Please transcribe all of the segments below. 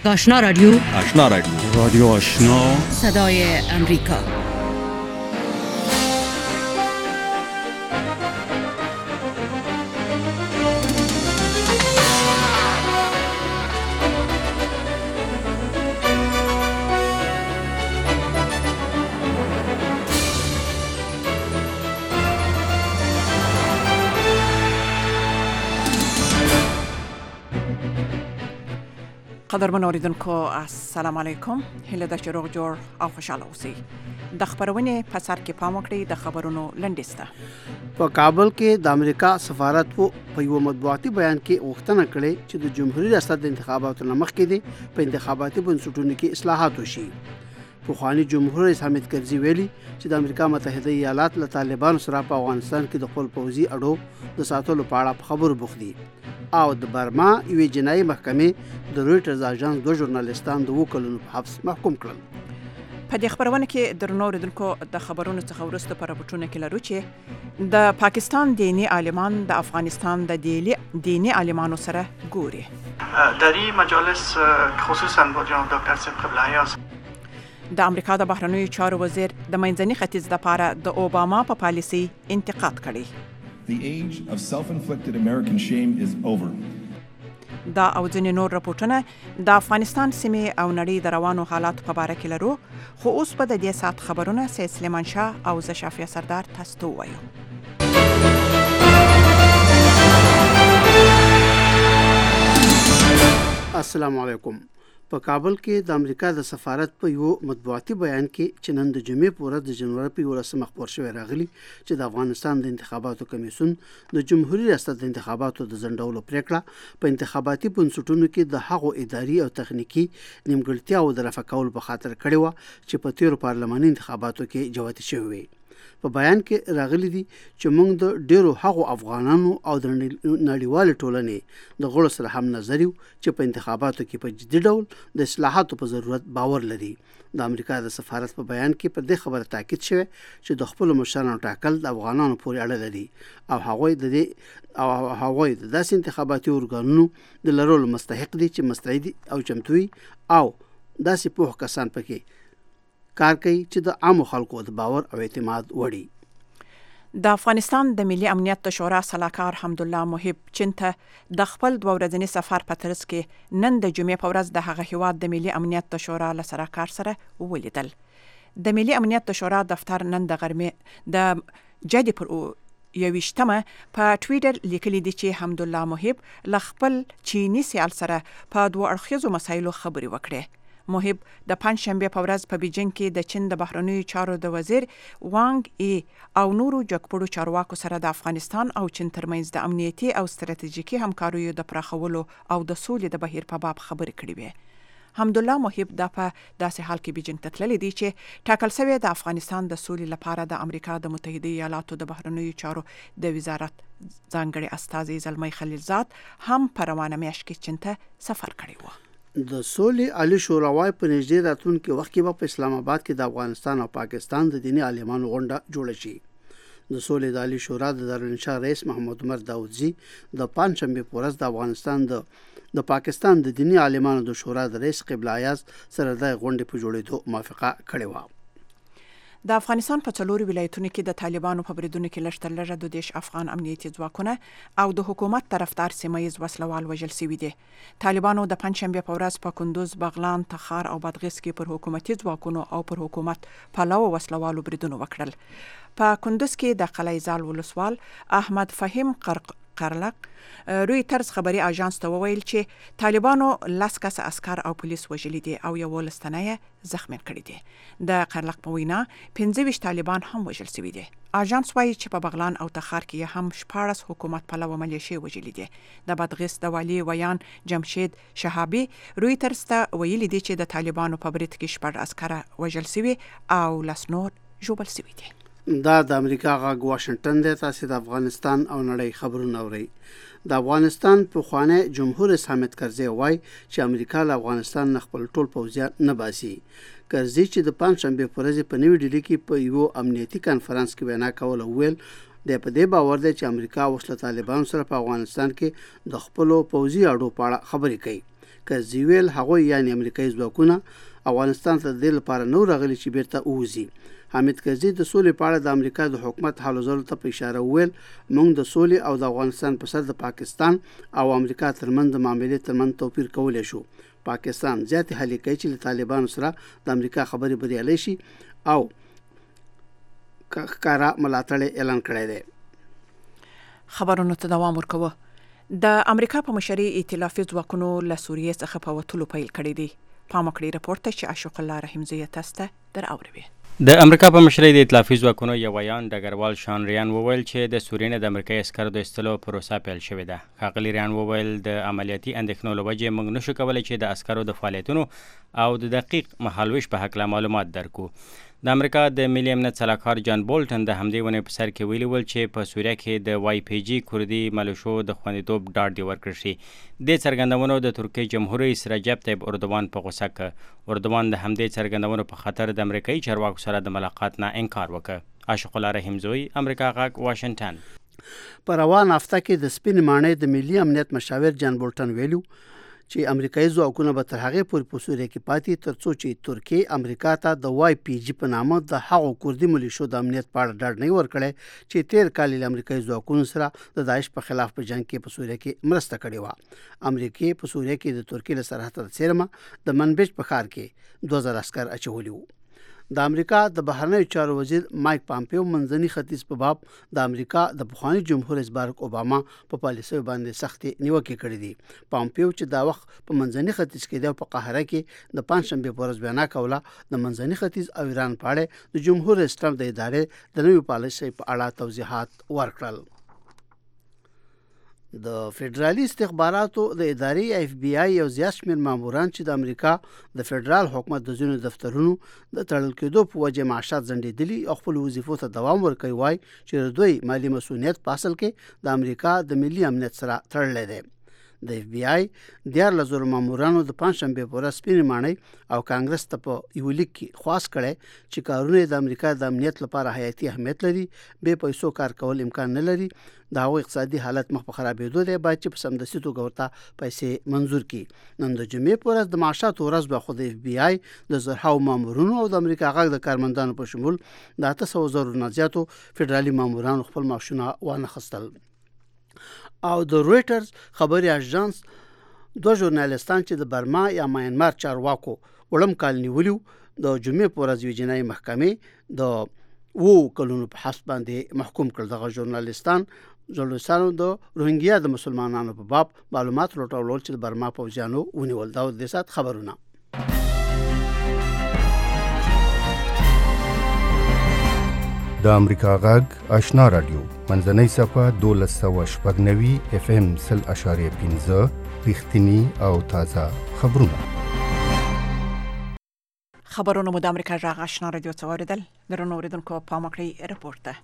آشنا رادیو رادیو آشنا صدای امریکا. قدرمن اوریدونکو السلام علیکم. هله د شروع جوړ او خوشاله اوسئ. د خبرونه په سر کې پام وکړئ. د خبرونو لنډیسته په کابل کې د امریکا سفارت په یو مطبوعاتي بیان کې غوښتنه کړې چې د جمهوریت ریاست د انتخاباتو مخکې دي په انتخاباتي بنسټونو کې اصلاحات وشي. پخوانی جمهور رئیس حامد کرزي ویلي چې د امریکا متحده ایالات له طالبانو سره په افغانستان کې د خپل پوځي اډو د ساتلو په اړه خبرو بوخت دي او د برما یوې جنایي محکمې د رویټرز اژانس دوه ژورنالیستان د 2 کلونو په حبس محکوم کړل. په دې خبرونه کې درنو اوریدونکو د خبرونو څخه وروسته په راپورټونه کې لرو چې د پاکستان دینی عالمان د افغانستان د دینی عالمانو سره ګوري. در این مجالس خصوصا با جناب دکتر صدیق قبله‌ای د امریکا د بهرنیو چارو وزیر د منځني ختیځ لپاره د اوباما په پالیسي انتقاد کړی. The age of self-inflicted American shame is over. دا او ځینې نور راپورټونه د افغانستان سیمې او نړۍ د روانو حالاتو په اړه کې لرو، خو اوس په دې سات خبرونه سید سلیمان شاه او زه شافیه سردار تاسو ته وایو. السلام علیکم. په کابل کې د امریکا د سفارت په یو مطبوعاتي بیان کې چې نن د جمعې په ورځ د جنوري په 11 خبر شوی راغلی چې د افغانستان د انتخاباتو کمیسیون د جمهوریت ریاست د انتخاباتو د ځنډولو پریکړه په انتخاباتي بنسټونو کې د هغو اداري او تخنیکی نیمګړتیاو د رفع کولو په خاطر کړې و چې په تیرو پارلماني انتخاباتو کې جوتې شوې وي. په بیان کې راغلي دي چې موږ د ډیرو هغو افغانانو او د نړیوال ټولنې د غړو سره هم نظر یو چې په انتخاباتو کې په جدي ډول د اصلاحاتو په ضرورت باور لري. د امریکا د سفارت په بیان کې پر دې خبره تاکید شوی چې د خپل مشرانو ټاکل د افغانانو پورې اړه لري او هغوی د داسې انتخاباتي ارګانونو د لرلو مستحق دي چې مستعد او چمتوي او داسې پوه کسان پکې کار کوي چې د عامو خلکو د باور او اعتماد وړي. د افغانستان د ملي امنیت د شورا سلاکار حمدالله محب چین ته د خپل 2 ورځني سفر په ترڅ کې نن د جمعې په ورځ د هغه هیواد د ملي امنیت د شورا له سلاکار سره ولیدل. د ملي امنیت د شورا دفتر نن د غرمې د جدي پر 21 په ټویټر لیکلي دي چې حمدالله محب له خپل چینی سیال سره په 2 اړخیزو مسایلو خبرې وکړې. محب د پنځشنبه په ورځ په بیجینګ کې د چین د بهرنیو چارو د وزیر وانګ ای او نورو جګپړو چارواکو سره د افغانستان او چین ترمنځ د امنیتي او ستراتیژیکي همکاریو د پراخولو او د سولې د بهیر په باب خبرې کړې وې. حمدالله محب د په داسې حال کې بیجینګ ته تللی دی چې ټاکل شوی د افغانستان د سولې لپاره د امریکا د متحده ایالاتو د بهرنیو چارو د وزارت ځانګړي استازي زلمی خلیلزاد هم په روانه میاشت کې چین ته سفر کړی و. د سولې عالی شوراوای په نږدې راتلونکي وخت کې په اسلام آباد کې د افغانستان او پاکستان د دینی عالمانو غونډه جوړه شي. د سولې د عالی شورا د دارالانشا رئیس محمد عمر داودزی د پنځشنبه په ورځ د افغانستان د پاکستان د دینی عالمانو د شورا د رئیس قبله ایاز سره د غونډې په جوړېدو موافقه کړې و. د افغانستان په 4 ولایتونو کې د طالبانو په بریدونو کې لږ تر لږه 2 افغان امنیتي ځواکونه او د حکومت طرفدار سیمایي وسلوال وژل شوي دي. طالبانو د پنځشنبه په ورځ په کندوز، بغلان، تخار او بادغیس کې پر حکومتي ځواکونو او پر حکومت پلوه وسلوالو بریدونه وکړل. په کندوز کې د قلعه‌زال ولسوال احمد فهیم قرلق رویټرز خبري اژانس ته وویل چې طالبانو 10 کس عسكر او پولیس وژلي دي او یو لستنه زخمی کړی دي. د قرلق په وینا 25 طالبان هم وژل شوي دي. اژانس وايي چې په بغلان او تخار کې هم 14 حکومت پلوه ملیشي وژلي دي. د بادغیس د والی ویان جمشید شهابي رویټرز ته ویلي دي چې د طالبانو په برید کې 14 عسكر وژل شوي او لسنور ژوبل شوي دي. دا د امریکا غږ واشنگټن دی. تاسو د افغانستان او نړۍ خبرونه اورئ. د افغانستان پخوانی جمهور رئیس حامد کرزي وایي چې امریکا له افغانستان نه خپل ټول پوځیان نه باسي. کرزي چې د پنځشنبه په ورځ په نوې ډیلي کې په یو امنیتي کانفرنس کې وینا کوله ویل د په دې باور دی چې امریکا اوس له طالبانو سره په افغانستان کې د خپل پوځي اډو په اړه خبرې کوي. کزیویل هغه یعنی امریکایي ځواکونه افغانستان ته د لپاره نو راغلي چې بیرته ووزي. حامد کرزي د سولې په اړه د امریکا د حکومت حالو ځلو ته په اشاره وویل موږ د سولې او د افغانستان په سر د پاکستان او امریکا ترمنځ د معاملې ترمنځ توپیر کولی شو. پاکستان زیاتې هلې کوي چې له طالبانو سره د امریکا خبرې بریالۍ شي او ښکارا ملاتړ اعلان کړی دی. خبرونو ته دوام ورکوه. د امریکا په مشرۍ ائتلافي ځواکونو له سوریې څخه په وتلو پیل کړی دی. پام وکړئ راپور ته چې عاشق الله رحیمزی تاسو ته در اوروي. د امریکا په مشرۍ د ائتلافي ځواکونو یو ویان ډګروال شان ریان وویل چې د سوریې نه د امریکایي عسکرو د ایستلو پروسه پیل شوې ده. ښاغلي ریان وویل د عملیاتي اندېښنو له وجې موږ نشو کولی چې د عسکرو د فعالیتونو او د دقیق مهالویش په هکله معلومات درکو. د امریکا د ملي امنیت سلاکار جان بولټن د همدې ونې په سر کې ویلي ول چې په سوریه کې د وای پی جي کردي ملیشو د خوندیتوب ډاډ دی ورکړل شي. د څرګندونو د ترکیې جمهور رئیس رجب طیب اردوان په غوسه ک. اردوان د همدې څرګندونو په خاطر د امریکایي چارواکو سره د ملاقات نه انکار وکړ. عاشق الله رحیمزوی، امریکا غږ، واشنگټن. په روان هفته کې د سپین ماڼۍ د ملي امنیت مشاور جان بولټن ویلو چې امریکایي ځواکونه به تر هغې پورې په سوریه کې پاتې تر څو چې ترکیې امریکا ته د وای پی جي په نامه د هغو کردي ملیشو د امنیت په اړه ډاډ نه ورکړی چې تیر کال له امریکایي ځواکونو سره د داعش په خلاف په جنگ کې په سوریه کې مرسته کړې وه. امریکا په سوریه کې د ترکیې له سرحد د څیرمه د منبج په ښار کې 2000 عسکر اچولي وو. د امریکا د بهرنیو چارو وزیر مایک پامپیو منځني ختیځ په باب د امریکا د پخوانی جمهور رئیس بارک اوباما په پالیسۍ باندې سختې نیوکې کړې دي. پامپیو چې دا وخت په منځني ختیځ کې د قاهره کې د پنځشنبه په ورځ بیان کوله د منځني ختیځ او ایران په اړه د جمهور رئیس ټرمپ د ادارې د نوې پالیسۍ په اړه توضیحات ورکړل. د فدرالي استخباراتو د ادارې اف بی آی یو زیات شمېر ماموران چې د امریکا د فدرال حکومت د ځینو دفترونو د تړل کېدو په وجه معاشات ځنډېدلي او خپل وظیفو ته دوام ورکوي وایي چې دوی مالی مسؤلیت په اصل کې د امریکا د ملي امنیت سره تړلی دی. د اف بی آی 14,000 مامورانو د پنځشنبه په ورځ سپینې ماڼۍ او کانګرس ته په یو لیک کې خواست کړی چې کارونه د امریکا د امنیت لپاره حیاتي اهمیت لري، بې پیسو کار کول امکان نه لري، د هغوی اقتصادي حالت مخ په خرابېدو دی، باید چې په سمدستي توګه ورته پیسې منظور کړي. نن د جمعې په ورځ د معاشاتو ورځ به خو د اف بی آی د زرهاو مامورونو او د امریکا غږ د کارمندانو په شمول د 800,000 نه زیاتو فدرالي مامورانو خپل معاشونه وانخیستل. او د رویټرز خبري اژانس دوه ژورنالیستان چې د برما یا ماینمار چارواکو وړم کال نیولیو د جمعې په ورځ یوې جنایي محکمې د 2 کلونو په حبس باندې محکوم کړل. دغه ژورنالیستانو د روهینګیا د مسلمانانو په باب معلومات راټولول چې د برما پوځیانو ونیول. دا د سات خبرونه. د امریکا غږ آشنا رادیو منځنۍ صفحه 1290 اف ام 0.15 رښتینی او تازه خبرونه. خبرونه مو د امریکا غږ آشنا رادیو څوریدل درنو اوریدونکو پام وکړئ راپور ته.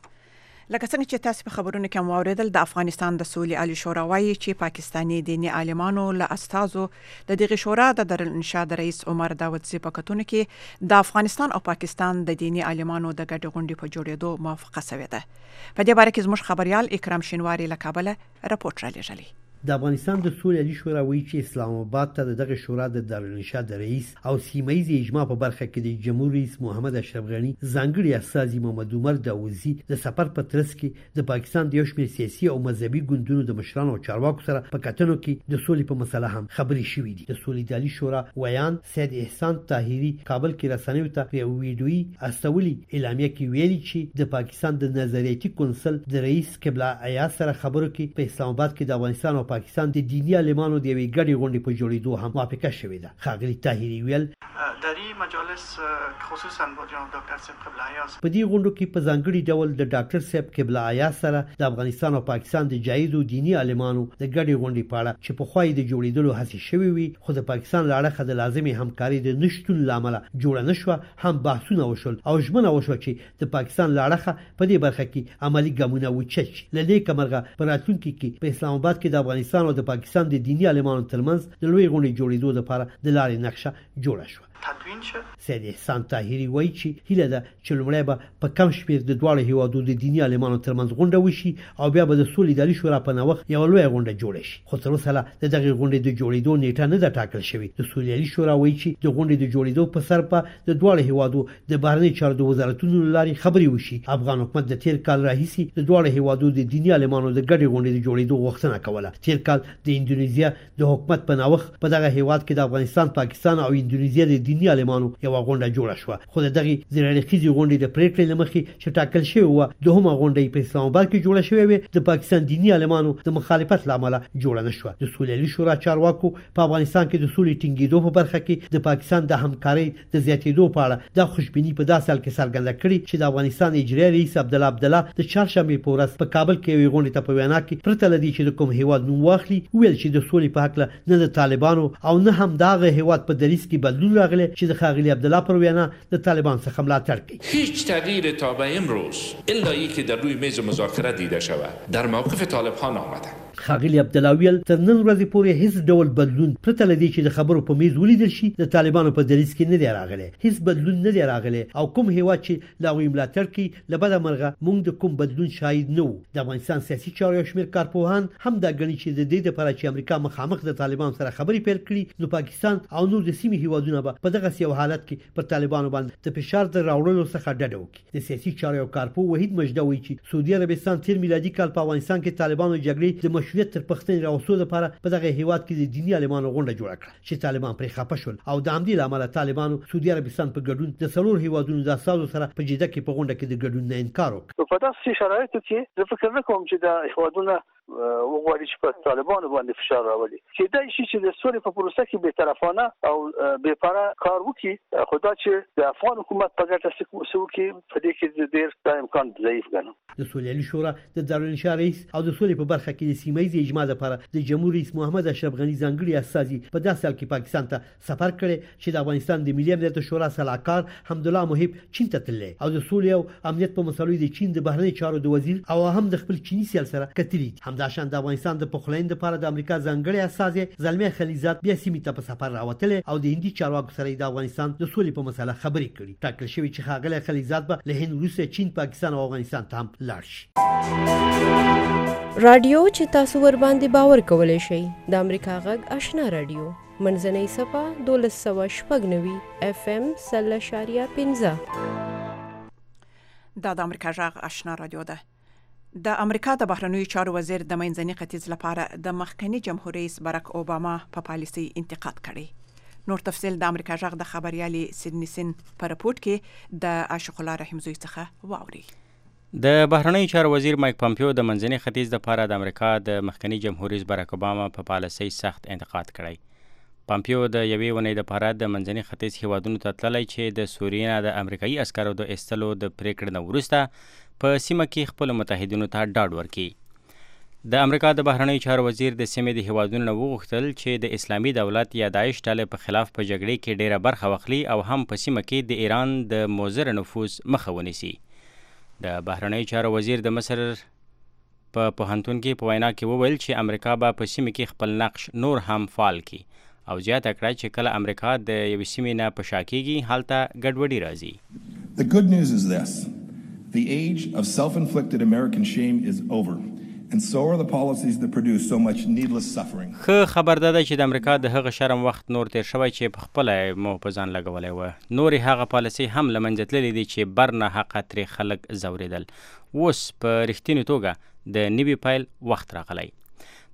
لکه څنګه چې تاسو په خبرونو کې مو اوریدل د افغانستان د سولې عالی شورا وايي چې پاکستاني دیني عالمانو له استازو د دغه شورا د دارالانشا د رئیس عمر داودزي په کتون کې د افغانستان او پاکستان د دیني عالمانو د ګډ غونډې په جوړېدو موافقه شوې ده. په دې باره کې زموږ خبريال اکرام شینواری له کابل راپورټ را لېږلی. د افغانستان د سولې عالی شورا وایي چې اسلام آباد ته دغه شورا د دارالانشا د رئیس او سیمایي اجماع په برخه کې د جمهور رئیس محمد اشرف غنی ځانګړي استازي محمد عمر داوودزي د سفر په ترڅ کې د پاکستان د یو شمېر سیاسي او مذهبي ګوندونو د مشرانو او چارواکو سره په کتنو کې د سولې په مسله هم خبرې شوې دي. د سولې عالی شورا ویان سید احسان طاهری کابل کې رسنیو ته په ویډیوي استولي اعلامیه کې ویلي چې د پاکستان د نظریاتي کونسل د رئیس قبله عیا سره خبرو کې په اسلام آباد کې د افغانستان او پاکستان د دینی عالمانو د یوې ګډې غونډې په جوړېدو هم موافقه شوې ده. ښاغلي طاهري ویل در این مجالس خصوصا با جناب دکتر صاحب قبله عیاز په دې غونډو کې په ځانګړي ډول د ډاکټر صاحب قبله عیاز سره د افغانستان او پاکستان د جایزو دینی عالمانو د ګډې غونډې په اړه چې په خوای د جوړېدلو هڅې شوې وي خو د پاکستان لاړه د لازمي همکاري د نشټون لامل جوړ نه شو هم بحثونه وشول او ژمنه وشو چې د پاکستان لاړه په دې برخه کې عملی ګامونه وچت لدې کمرغه پر راتلونکي کې په اسلام آباد کې د افغانستان او د پاکستان د دینی عالمانو ترمنځ د لوی غونډې جوړېدو لپاره د لارې نقشه جوړه شوه. تدوین شه. سید احسان طاهری وایي چې هیله ده چې لومړی به په کم شمېر د دواړو هیوادو د دیني عالمانو ترمنځ غونډه وشي او بیا به د سولې اداري شورا په نوښت یوه لویه غونډه جوړه شي. خو تر اوسه لا د دغې غونډې د جوړېدو نیټه نه ده ټاکل شوې. د سولې اداري شورا وایي چې د غونډې د جوړېدو په سر په د دواړو هیوادو د بهرنیو چارو د وزارتونو له لارې خبرې وشي. افغان حکومت د تیر کال راهیسې د دواړو هیوادو د دیني عالمانو د ګډې غونډې د جوړېدو غوښتنه کوله. تیر کال د اندونیزیا د حکومت په نوښت په دغه هیواد کې د افغانستان، پاکستان او اندونیزیا د دیني عالمانو یو غونډه جوړه شوه. خو دغه زیرړخیزي غونډې د پریکړې لمخې چې ټاکل شوی و دوهمه غونډه په اسلام آباد کې جوړه شوې وه، د پاکستان دیني عالمانو د مخالفت لامل جوړه نشوه. د سولې شورا چارواکو په افغانستان کې د سولې ټینګېدو په برخه کې د پاکستان د همکارۍ د زیاتېدو په اړه د خوشبینی په داسې حال کې څرګنده کړې چې د افغانستان اجرایي رئیس عبدالله د چهارشنبې په ورځ په کابل کې یوې غونډې ته په وینا کې پرته له دې چې د کوم هیواد نوم واخلي ویل چې د سولې په هکله نه د طالبانو او نه هم دغه هیواد په دریځ کې بدلون راغلی چې د ښاغلي عبدالله پر وینا د طالبان څخه ملاتړ کوي. هیچ تغییر تا به امروز الا اینکه در روی میز مذاکره دیده شود در موقف طالبان آمده. ښاغلي عبدالله ویل تر نن ورځې پورې هیڅ ډول بدلون پرته له دې چې د خبرو په میز ولیدل شي د طالبانو په دریځ کې نه دی راغلی. هیڅ بدلون نه دی راغلی او کوم هیواد چې له هغوی ملاتړ کوي له بده مرغه موږ د کوم بدلون شاهد نه وو. د افغانستان سیاسي چارو یو شمېر کارپوهان هم دا ګڼي چې د دې دپاره چې امریکا مخامخ د طالبانو سره خبرې پیل کړي نو پاکستان او نور د سیمې هیوادونه به په دغسې یو حالت کې پر طالبانو باندې د فشار د راوړلو څخه ډډه وکړي. د سیاسي چارو یو کارپوه وحید مجده وایي چې سعودي عربستان تیر میلادي کال په افغانستان کې طالبانو جګړې د مشروعیت تر پښتنې راوستلو لپاره په دغه هیواد کې د دیني عالمانو غونډه جوړه کړه چې طالبان پرې خفه شول او د همدې له امله طالبانو سعودي عربستان په ګډون د څلور هیوادونو د استازو سره په جده کې په غونډه کې د ګډون نه انکار وکړ. په داسې شرایطو کې زه فکر نه کوم چې د هیوادونو وغواړي چې په طالبانو باندې فشار راولي. کېدای شي چې د سولې په پروسه کې بې طرفانه او بې پاره کار وکړي، خو دا چې د افغان حکومت په ګټه څه وکړي په دې کې ډېر دا امکان ضعیف ګڼم. د سولې شورا د دارالانشا رئیس او د سولې په برخه کې د سیمه ییز اجماع لپاره د جمهور رئیس محمد اشرف غني ځانګړي استازي په داسې حال کې پاکستان ته سفر کړی چې د افغانستان د ملي امنیت شورا سلاکار حمدالله محب چین ته تللی او د سولې او امنیت په مسایلو د چین د بهرنیو چارو د وزیر او هم د خپل چینی سیال سره کتلي. همداشان د افغانستان د پخلاینې لپاره د امریکا ځانګړي استازي زلمي خلیزات بیا سیمې ته په سفر راوتلی او د هندي چارواکو سره د افغانستان د سولې په مسله خبرې کړي. ټاکل شوی چې ښاغلی خلیزات به له هند وروسته چین، پاکستان او افغانستان ته هم لاړ شي. رادیو چې تاسو ور باندې باور کولای شئ د امریکا غږ آشنا رادیو منځنۍ صفه 1290 FM 0.15 دا د امریکا غږ آشنا رادیو ده. د امریکا د بهرنیو چارو وزیر د منځني ختیځ لپاره د مخکنی جمهور رئیس باراک اوباما په پالیسي انتقاد کړی. نور تفصیل د امریکا غږ د خبريالي سیدنی سن په رپورت کې د عاشق الله رحیم زوی څخه واوري. د بهرنیو چارو وزیر مایک پامپیو د منځني ختیځ لپاره د امریکا د مخکنی جمهور رئیس باراک اوباما په پالیسي سخت انتقاد کړی. پامپیو د یوې ونې لپاره د منځني ختیځ هیوادونو ته تللی چې د سوریې نه د امریکایي عسکرو د ایستلو د پریکړې نه وروسته په سیمه کې خپل متحدینو ته ډاډ ورکړي. د امریکا د بهرنیو چارو وزیر د سیمې د هیوادونو نه وغوښتل چې د اسلامي دولت یا داعش ډلې په خلاف په جګړې کې ډیره برخه واخلي او هم په سیمه کې د ایران د مضر نفوذ مخه ونیسي. د بهرنیو چارو وزیر د مصر په پوهنتون کې په وینا کې وویل چې امریکا به په سیمه کې خپل نقش نور هم فعال کړي او زیاته کړه چې کله امریکا د یوې سیمې نه په شا کېږي هلته ګډوډي راځي. The good news is this. The age of self-inflicted American shame is over. And so are the policies that produce so much needless suffering. ښه خبر ده چې د امریکا د هغه شرم وخت نور تیر شوی چې په خپل مو په ځان لګولې و. نور هغه پالیسي هم لمنځه تللې دي چې برنه حق تر خلک زوریدل. اوس په رښتینې توګه د نوي پیل وخت راغلی.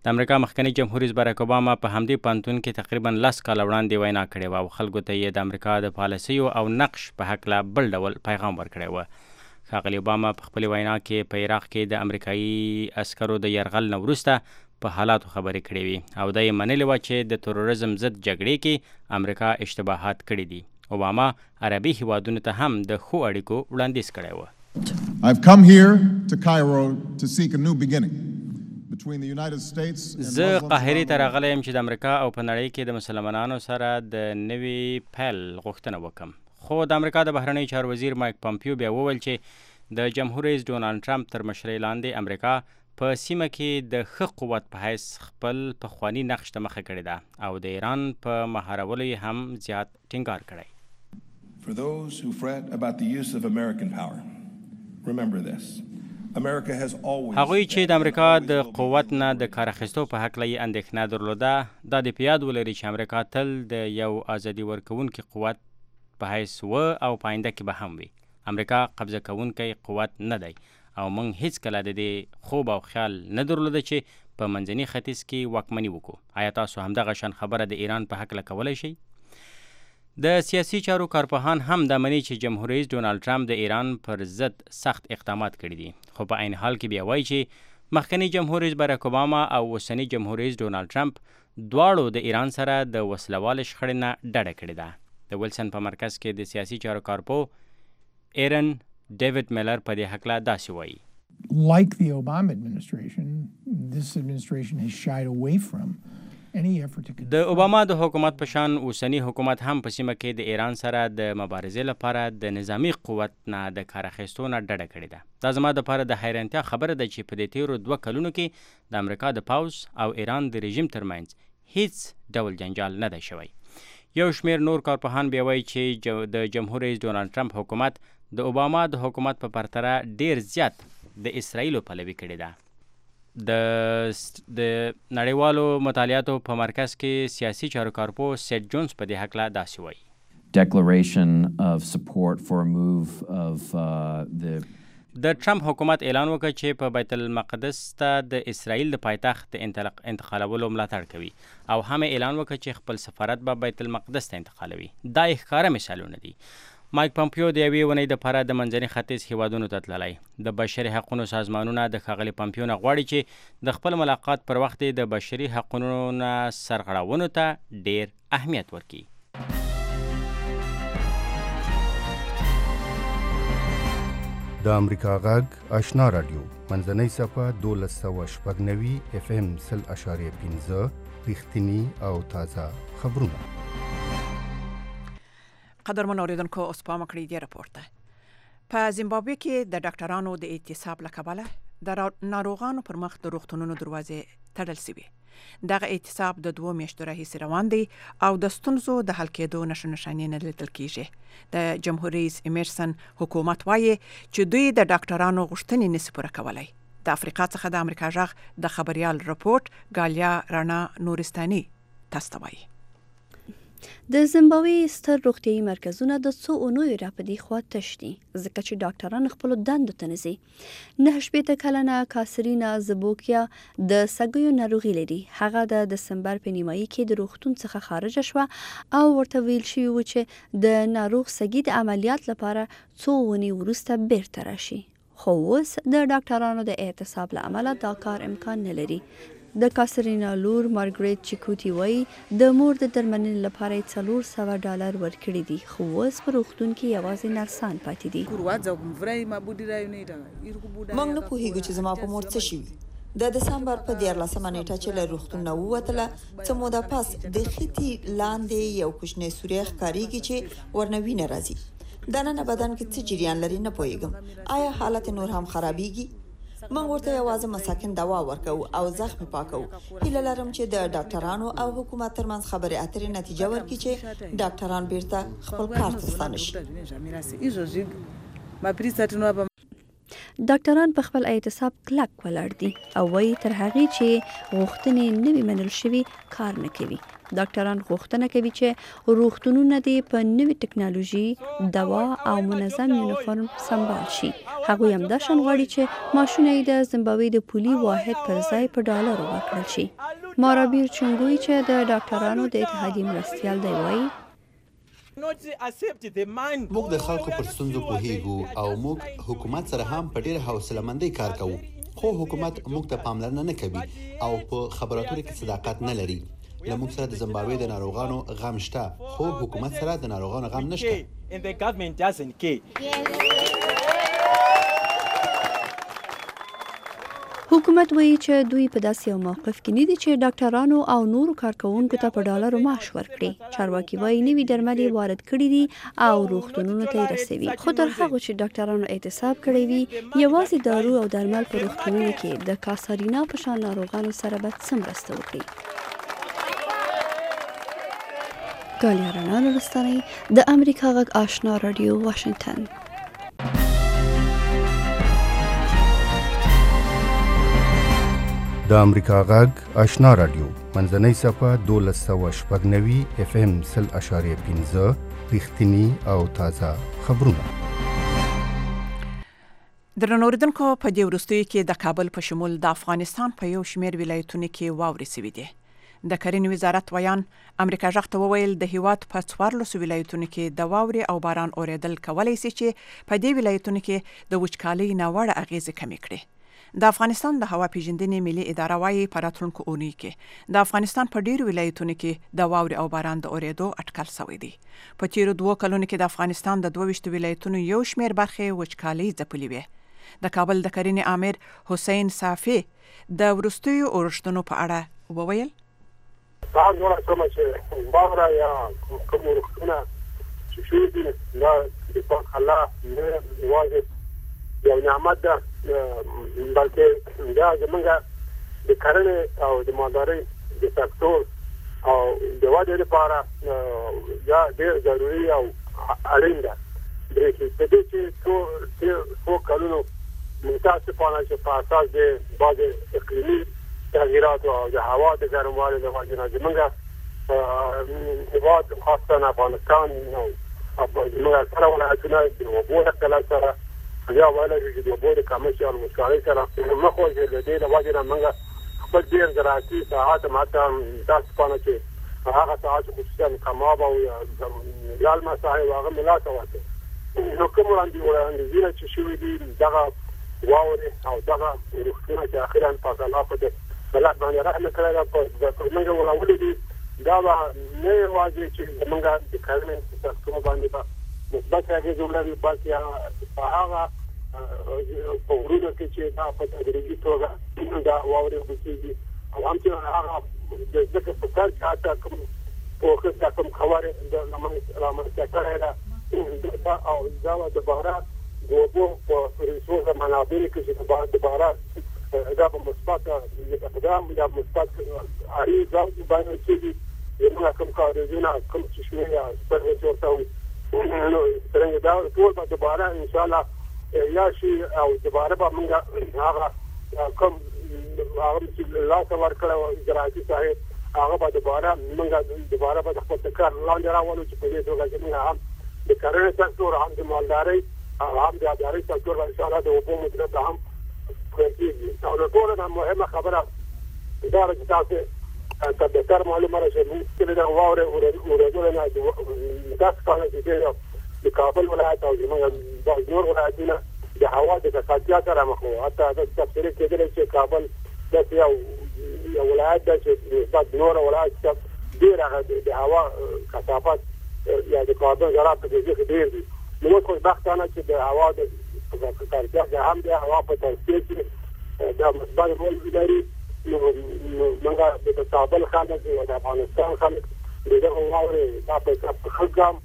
د امریکا مخکنی جمهور رئیس باراک اوباما په همدې پانتون کې تقریبا 10 کال وړاندې وینا کړې و او خلکو ته یې د امریکا د پالیسیو او نقش په هکله بل ډول پیغام ورکړی و. ښاغلي اوباما په خپل وینا کې په عراق کې د امریکایي عسکرو د یرغل نه وروسته په حالاتو خبرې کړې وي او دا یې منلې وه چې د تروریزم ضد جګړې کې امریکا اشتباهات کړي دي. اوباما عربي هیوادونو ته هم د ښو اړیکو وړاندیز کړی و. I've come here to Cairo to seek a new beginning between the United States and زه قاهرې ته راغلی یم چې د امریکا او په نړۍ کې د مسلمانانو سره د نوي پیل غوښتنه وکړم. خو د امریکا د بهرنیو چارو وزیر مایک پامپیو بیا وویل چې د جمهور رئیس ډونالډ ټرمپ تر مشرۍ لاندې امریکا په سیمه کې د ښه قوت په حیث خپل پخواني نقش ته مخه کړې ده او د ایران په مهارولو یې هم زیات ټینګار کړی. For those who fret about the use of American power, remember this. America has always هغوی چې د امریکا د قوت نه د کار اخیستو په هکله یې اندېښنه درلوده دا د په یاد ولري چې امریکا تل د یو ازادي ورکوونکي قوت په حیث و او په آینده کې به هم وي. امریکا قبضه کوونکی قوت نه دی او موږ هیڅکله د دې خوب او خیال نه درلوده چې په منځني ختیځ کې واکمني وکړو. آیا تاسو همدغه شان خبره د ایران په هکله کولی شئ؟ د سیاسي چارو کارپوهان هم دا مني چې جمهور رئیس ډونالد ټرمپ د ایران پر ضد سخت اقدامات کړي دي، خو په عین حال کې بیا وایي چې مخکنی جمهور رئیس باراک اوباما او اوسنی جمهور رئیس ډونالد ټرمپ دواړو د ایران سره د وسلوال شخړې نه ډډه کړې ده. د ویلسن په مرکز کې د سیاسي چارو کارپوه ایرن ډیوډ میلر په دې هکله داسې وایي. Like the Obama administration, this administration has shied away from د اوباما د حکومت په شان اوسنی حکومت هم په سیمه کې د ایران سره د مبارزې لپاره د نظامی قوت نه د کار اخیستو نه ډډه کړې ده. دا زما دپاره د حیرانتیا خبره ده چې په دې تیرو 2 کلونو کې د امریکا د پوځ او ایران د رژیم ترمنځ هیڅ ډول جنجال نه دی شوی. یو شمیر نور کارپوهان بیا وایي چې د جمهور رئیس ډونالد ټرمپ حکومت د اوباما د حکومت په پرتله ډیر زیات د اسرائیلو پلوي کړې ده. د نړیوالو مطالعاتو په مرکز کې سیاسي چارو کارپوه سیټ جونز په دې هکله داسې وایي. Declaration of support for a move of د ټرمپ حکومت اعلان وکړ چې په بیت المقدس ته د اسرائیل د پایتخت انتقالولو ملاتړ کوي او هم اعلان وکړ چې خپل سفارت به بیت المقدس ته انتقالوي. دا ښکاره مثالونه دي. مایک پمپیو د یوې اونۍ دپاره د منځني ختیځ هیوادونو ته تللی. د بشري حقونو سازمانونه د ښاغلي پمپیو نه غواړي چې د خپل ملاقات پر وخت د بشري حقونو نه سرغړونو ته ډیر اهمیت ورکړي. د امریکا غږ آشنا رادیو منځنۍ صفحه 1290 FM 0.5 رښتینی او تازه خبرونه. قدرمن اوریدونکو اوس پام کړئ دې راپور ته. په زیمبابوې کې د ډاکټرانو د اعتصاب له کبله د ناروغانو پر مخ د روغتونونو دروازې تړل شوې. دغه اعتصاب د 2 میاشتو راهیسې روان دی او د ستونزو د حل کېدو نښانې نه لیدل کېږي. د جمهور رئیس ایمرسن حکومت وایي چې دوی د ډاکټرانو غوښتنې نشي پوره کولی. د افریقا څخه د امریکا غږ د خبريال رپورټ ګالیا رانا نورستاني تاسو ته وایي. د زیمبابوې ستر روغتیايي مرکزونه د څو اونیو راپدې خوا تش دي ځکه چې ډاکټران خپل دندو ته نه ځي. 9 کلنه کاسرینا زبوکیا د سګیو ناروغي لري. هغه د دسمبر په نیمایي کې د روغتون څخه خارج شوه او ورته ویل شوی و چې د ناروغ سګي د عملیات لپاره څو ونی وروسته بیرته راشي. خو اوس د ډاکټرانو د اعتصاب له امله دا کار امکان نه لري. د کاسرینا لور مارګریټ چیکوټي وایي د مور د درملنې لپاره $400 ورکړي دي خو اوس په روغتون کې یوازې نرسان پاتې دي. موږ نه پوهیږو چې زما په مور څه شوي. د دسمبر په 14 نیټه چې له روغتون نه ووتله څه موده پس د خېټې لاندې یو کوچنی سوری ښکارېږي چې ورنوي نه راځي. دننه بدن کې څه جریان لري نه پوهیږم. آیا حالت نور هم خرابېږي؟ موږ ورته یوازې مساکن دوا ورکو او زخم پاکو. هیله لرم چې د ډاکټرانو او حکومت ترمنځ خبرې اترې نتیجه ورکړي چې ډاکټران بیرته خپل کار ته ستانه شي. ډاکټران په خپل اعتصاب کلک ولاړ دي او وایي تر هغې چې غوښتنې نه وي منل شوي کار نه کوي. ډاکټران غوښتنه کوي چې روغتونونه دې په نوې ټکنالوژي، دوا او منظم یونیفورم سمبال شي. هغوی همدا شان غواړي چې معاشونه یې د زیمبابوې د پولي واحد پر ځای په ډالرو ورکړل شي. مارابیر چنګوي چې د ډاکټرانو د اتحادیې مرستیال دی وایي موږ د خلکو پر ستونزو پوهیږو او موږ حکومت سره هم په ډېره حوصله‌مندۍ کار کوو. خو حکومت موږ ته پاملرنه نه کوي او په خبراتو کې صداقت نه لري. له موږ سره د زیمبابوې د ناروغانو غم شته خو حکومت سره د ناروغانو غم نشته. حکومت وایي چې دوی په داسې یو موقف کې نه دي چې ډاکټرانو او نورو کارکوونکو ته په ډالرو معاش ورکړي. چارواکي وایي نوي درمل یې وارد کړي دي او روغتونونو ته یې رسوي. خو تر هغو چې ډاکټرانو اعتصاب کړی وي یوازې دارو او درمل په روغتونونو کې د کاسارینا په شان ناروغانو سره به څه مرسته وکړي. ګالیا رڼا لستاني د امریکا غږ آشنا رادیو واشنگټن. د امریکا غږ آشنا رادیو منځنۍ صفه 1290 FM 0.5 رښتینی او تازه خبرونه. درنوردونکو په دې وروستیو کې د کابل په شمول د افغانستان په یو شمېر ولایتونو کې واورې سوي دي. د کرنې وزارت ویان امریکا غږ ته وویل د هیواد په 14 ولایتونو کې د واورې او باران اورېدل کولای شي چې په دې ولایتونو کې د وچکالۍ ناوړه اغیزې کمې کړي. د افغانستان د هوا پیژندنې ملي اداره وايي په راتلونکو اونۍ کې د افغانستان په ډیرو ولایتونو کې د واورې او باران د اورېدو اټکل شوی دی. په تیرو 2 کلونو کې د افغانستان د 22 ولایتونو یو شمېر برخې وچکالۍ ځپلې وې. د کابل د کرنې امیر حسین صافي د وروستیو اورښتونو په اړه وویل: دا نور کوم چې باور یا کوم ورختونه چې شوی دي دا د الله نه واجب یو نعمت ده، بلکې دا زمونږ د کرنې او د مالدارۍ د سکتور او د ودې لپاره دا ډېر ضروري او اړین ده. د دې چې څو کلونو متاسفانه چې په اساس د بعض اقلیمي تغییرات او د هوا د ګرموالي له وجې نه زمونږ هېواد خاصه افغانستان او زمونږ سره ولایتونه د اوبو له قلت سره یا ویلی چې د اوبو د کمښت او وچکالۍ سره مخ وځي. د دې له وجې نه موږ خپل ډېر زراعتي ساحات هم حتی متاسفانه چې هغه ساحات خصوصا کماب او لالمه ساحې هغه مې لاسه ورکړې. نو کوم وړاندیزونه چې شوي دي دغه واورې او دغه روغتونه چې اخیرا پاک الله په دې بلد باندې رحم کړی ده په موږ ولاولې دي، دا به نه یوازې چې زموږ د کرنې سکتور باندې به مثبت اغېز ولري، بلکې په هغه په غرونو کې چې دا په تدریجي توګه دا واورې وکړي او همچنان هغه د ځمکې په سر کې حتی کوم پوښښ یا کوم خبرې رامنځته کړی ده او دا د باران د اوبو په ریسورس منابعو کې چې د باران دا په مثبت اقدام یا مثبت اړیکې باندې کېږي. زموږ کوم کارونه کوم چې شمېر یا سپرغې ورته وي نو څرنګه دا ټول به دوباره انشاءالله یا شي او دوباره به موږ هغه کوم هغه چې لاسه ورکړی و زراعتي ساحې هغه به دوباره موږ دوباره به د خپل کار لاندې راولو چې په دې توګه چې موږ هم د کرنې سکتور هم د مالدارۍ هم د اداري سکتور به انشاءالله د اوبو مدیریت هم کېږي. او د ټولو نه مهمه خبره دا ده چې تاسې ته بهتر معلومه ده چې موږ کلي د واورې اورېدلو نه متاسفانه چې د کابل ولایت او زموږ نور ولایتونه د هوا د ککړتیا سره مخ وو. حتی دا تفسیر کېدلی چې کابل داسې یو ولایت ده چې نسبت نور ولایت ته ډېر هغه د هوا کثافت یا د کاربن ذرات په کې ډېر دي. نو موږ خوشبختانه چې د هوا د ککړتیا هم د هوا په توسعه کې دا مثبت رول لري. نو موږ د کابل خلک او د افغانستان خلک دغه واورې دا په خلګام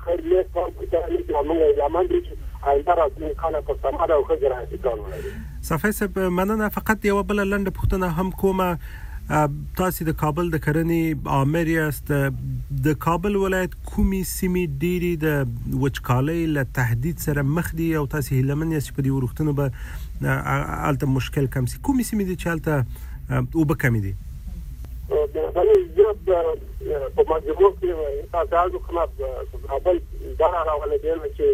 خیر لیک په تاریخ کې موږ یمن دي چې آینده راځي خلک په سماره او خجر راځي کار ولري. صفای صاحب مننه. فقط یو بل لنډه پوښتنه هم کومه، تاسو د کابل د کرنې امیر یاست، د کابل ولایت کومې سیمې ډېرې د وچکالۍ له تهدید سره مخ دي او تاسو هیلمن یاست په دې وروختونو به الته مشکل کم شي؟ کومې سیمې دي چې الته اوبه کمې دي؟ په مجموع کې تاسو کومه کابل دا راولې دی چې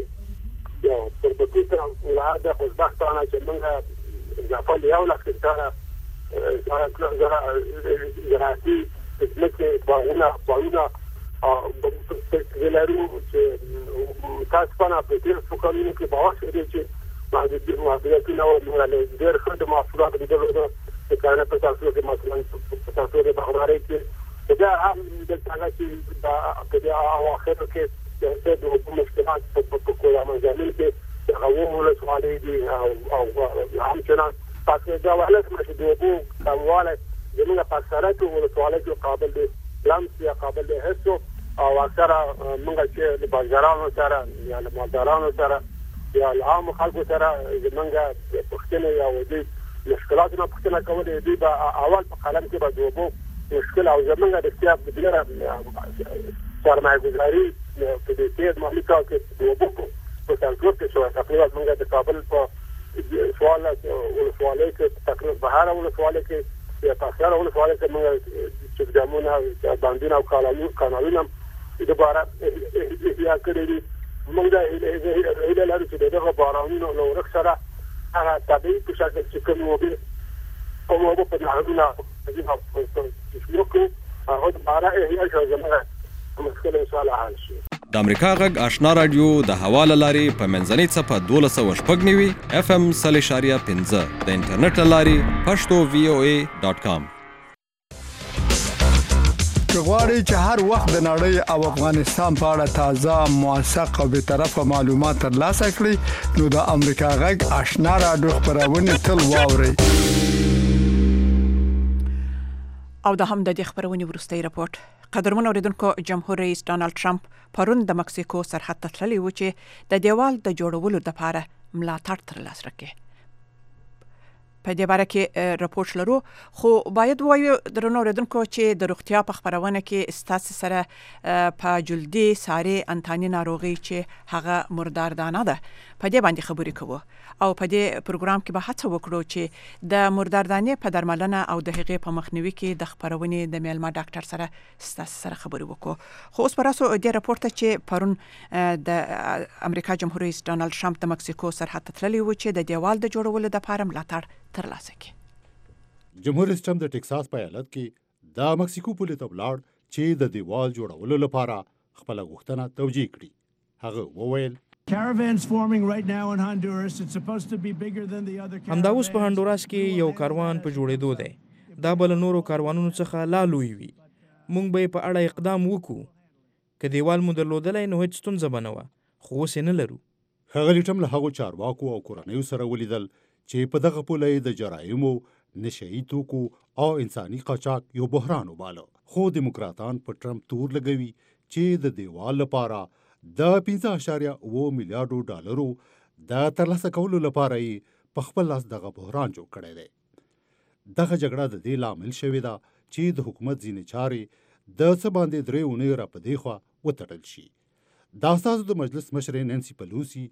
یو په دې سره ولایت خوشبختانه چې موږ ځپل یو لکه سره زراعتي ځمکې باغونه ولرو چې متاسفانه په دې څوکانو کې باور دی چې محدودیتونه او ډېر ښه د محصولات د درلودو د کرنې په تاسو کې مثلا په تاسو د بغدارۍ کې دا هم د څنګه چې په دې اواخر کې د مشکلات په کومه مجال کې هغه ولسوالۍ دي او همچنان تاسو دا ولایت چې د اوبو کمواله زموږ په سرات او ولسوالۍ کې قابل دي لمس یا قابل دي هڅو او اکثره موږ چې د بازارونو سره یا د مالدارانو سره یا عام خلکو سره زموږ پښتنه یا ودی مشکلاتونه پښتنه کولې دي په اول په قلم کې به د اوبو مشکل او زموږ د سیاست بدلره سرمایه‌گذاری په دې کې مالي کال کې د وبو په سنټور کې شو تقریبا موږ د کابل په ولسوالۍ کې تقریبا بهر ولسوالۍ کې یا تاسو ولسوالۍ کې موږ چې ګامونه باندې او قانونونه دوباره یا کړی موږ د هیله لرو چې دغه بارانونو نو ورسره هغه طبيعي په شکل چې کوم وبې کومه په نهادونه چې هغه دوباره هي ځمانه مشکل سوال حل شي. د امریکا غږ آشنا رادیو د حواله لاري په منځنۍ صفه 1290 FM 0.15 د انټرنیټ لاري pashto.voa.com. غواړئ چې هر وخت د نړۍ او افغانستان په اړه تازه موثق او به طرفه معلومات ترلاسه کړئ نو د امریکا غږ آشنا رادیو خبرونه تل واورئ. او د هم د دې خبرونې وروستۍ راپورټ. قدرمن اوریدونکو، جمهور رئیس ډانلډ ټرمپ پرون د مکسیکو سرحد ته تللی و چې د دیوال د جوړولو لپاره ملاتړ ترلاسه کړي. په دې باره کې راپورټ لرو، خو باید وایو درنو اوریدونکو چې د روغتیا په خبرونه کې ستاسو سره په جلدي ساري انتاني ناروغي چې هغه مرداردانه ده په دې باندې خبرې کوو او په دې پروګرام کې به هڅه وکړو چې د مرداردانې په درملنه او د هغې په مخنیوي کې د خبرونې د میلمه ډاکټر سره ستاسو سره خبرې وکړو. خو اوس پراسو دې راپورټ چې پرون د امریکا جمهور رئیس ډانلډ ټرمپ د مکسیکو سرحد ته تللی و چې د دیوال د جوړولو لپاره ملاتړ ترلاسه کړي. جمهور رئیس ټرمپ د ټکساس په ایالت کې د مکسیکو پولې ته ولاړ چې د دیوال جوړولو لپاره خپل غوښتنه توجیه کړي. هغه وویل Caravans forming right now in Honduras. It's supposed to be bigger than the other caravans. همدا اوس په هندوراس کې یو کاروان په جوړېدو دی. دا بل نورو کاروانونو څخه لا لوی وي. مونږ به په اړه اقدام وکړو. که دیوال مو درلودلای نو هیڅ ستونزه به نه وه، خو اوس یې نه لرو. ښاغلي ټرمپ له هغو چارواکو او کورنیو سره ولیدل چې په دغه پوله د جرایمو، نشهیي توکو او انساني قاچاق یو بحران وباله. خو دیموکراتان په ټرمپ تور لګوي چې د دیوال لپاره د 5.9 میلیارډو ډالرو د ترلاسه کولو لپاره یې په خپل لاس دغه بحران جوړ کړی دی. دغه جګړه د دې لامل شوې ده چې د حکومت ځینې چارې د څه باندې 3 اونۍ را په دې خوا وتړل شي. د استازو د مجلس مشرې نانسي پلوسی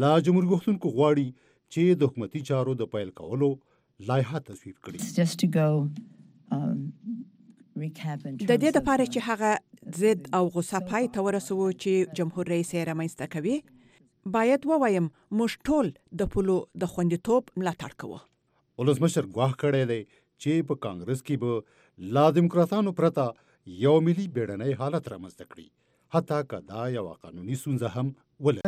لا جمهوریت غوښتونکو غواړي چې د حکومتي چارو د پیل کولو لایحه تصویب کړي. د دې لپاره چې هغه ضد او غصه پای ته ورسوي چې جمهور رئیس یې رامنځته کوي، باید ووایم موږ ټول د پولو د خوندیتوب ملاتړ کوو. ولسمشر ګواښ کړی دی چې په کانګرس کې به لا دیموکراتانو پرته یو ملي بیړنی حالت رامنځته کړي، حتی که دا یوه قانوني ستونزه هم ولري.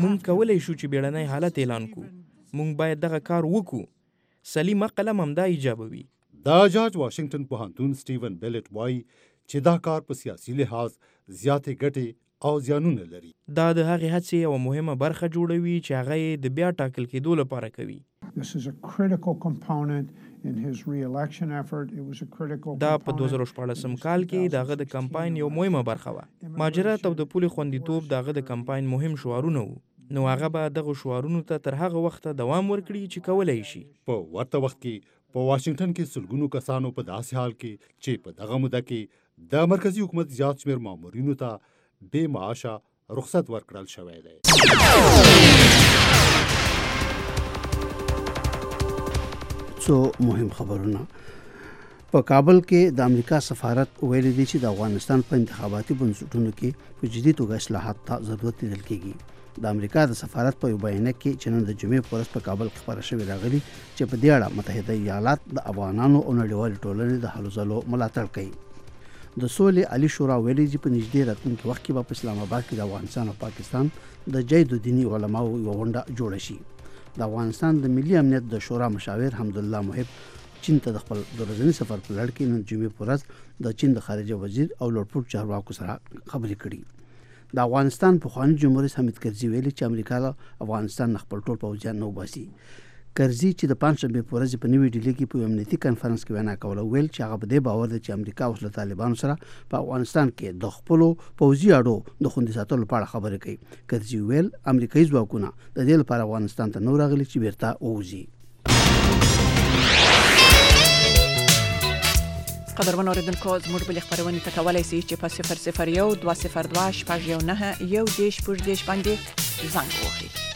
مونږ کولی شو چې بیړنی حالت اعلان کړو. مونږ باید دغه کار وکړو. سلیم عقل هم همدا ایجابوي. دا جارج واشنگټن پوهنتون سټیون بیلټ وایي چې دا کار په سیاسي لحاظ زیاتې ګټې او زیانونه لري. دا د هغې هڅې یوه مهمه برخه جوړوي چې هغه یې د بیا ټاکل کېدو لپاره کوي. دا په 2014 کال کې د هغه د کمپاین یو مهمه برخه وه. مهاجرت او د پولې خوندیتوب د هغه د کمپاین مهم شعارونه وو. نو هغه به دغه شعارونو ته تر هغه وخته دوام ورکړي چې کولی شي. په ورته وخت کې په واشنگټن کې سلګونو کسانو په داسې حال کې چې په دغه موده کې د مرکزی حکومت زیات شمېر مامورینو ته بې معاشه رخصت ورکړل شوی دی. څو مهم خبرونه. په کابل کې د امریکا سفارت ویلي دی چې د افغانستان په انتخاباتي بنسټونو کې په جدي توګه اصلاحات ته ضرورت لیدل کېږي. د امریکا د سفارت په یو بیان کې چې نن د جمعې په ورځ په کابل کې خبره شوې راغلي چې په دې اړه متحده ایالات د افغانانو او نړیوالې ټولنې د هلو ځلو ملاتړ کوي. د سولې عالی شورا ویلي چې په نږدې راتلونکي وخت کې به په اسلام آباد کې د افغانستان او پاکستان د جید دینی علماو یو غونډه جوړه شي. د افغانستان د ملي امنیت د شورا مشاور حمدالله محب چین ته د خپل ورځني سفر په لړ کې نن جمعې په ورځ د چین د خارجه وزیر او لوړپوړو چارواکو سره خبرې کړې. د افغانستان پخوانی جمهور رئیس حامد کرزي ویلي چې امریکا له افغانستان خپل ټول پوځیان نه وباسي. کرزي چې د پنځشنبې په ورځ په نوې ډیلي کې په امنیتي کانفرنس کې وینا کوله، ویل چې هغه په دې باور دی چې امریکا اوس له طالبانو سره په افغانستان کې د خپلو پوځي اډو د خوندي ساتلو لپاره خبرې کوي. کرزي ویل امریکایي ځواکونه د دې لپاره افغانستان ته نو راغلي چې بیرته ووځي. قدرمن اوریدونکو زموږ بل خبرونه تکولای شي چې په 001 202 شپږ 1 1 10 باندې زنګ وهي.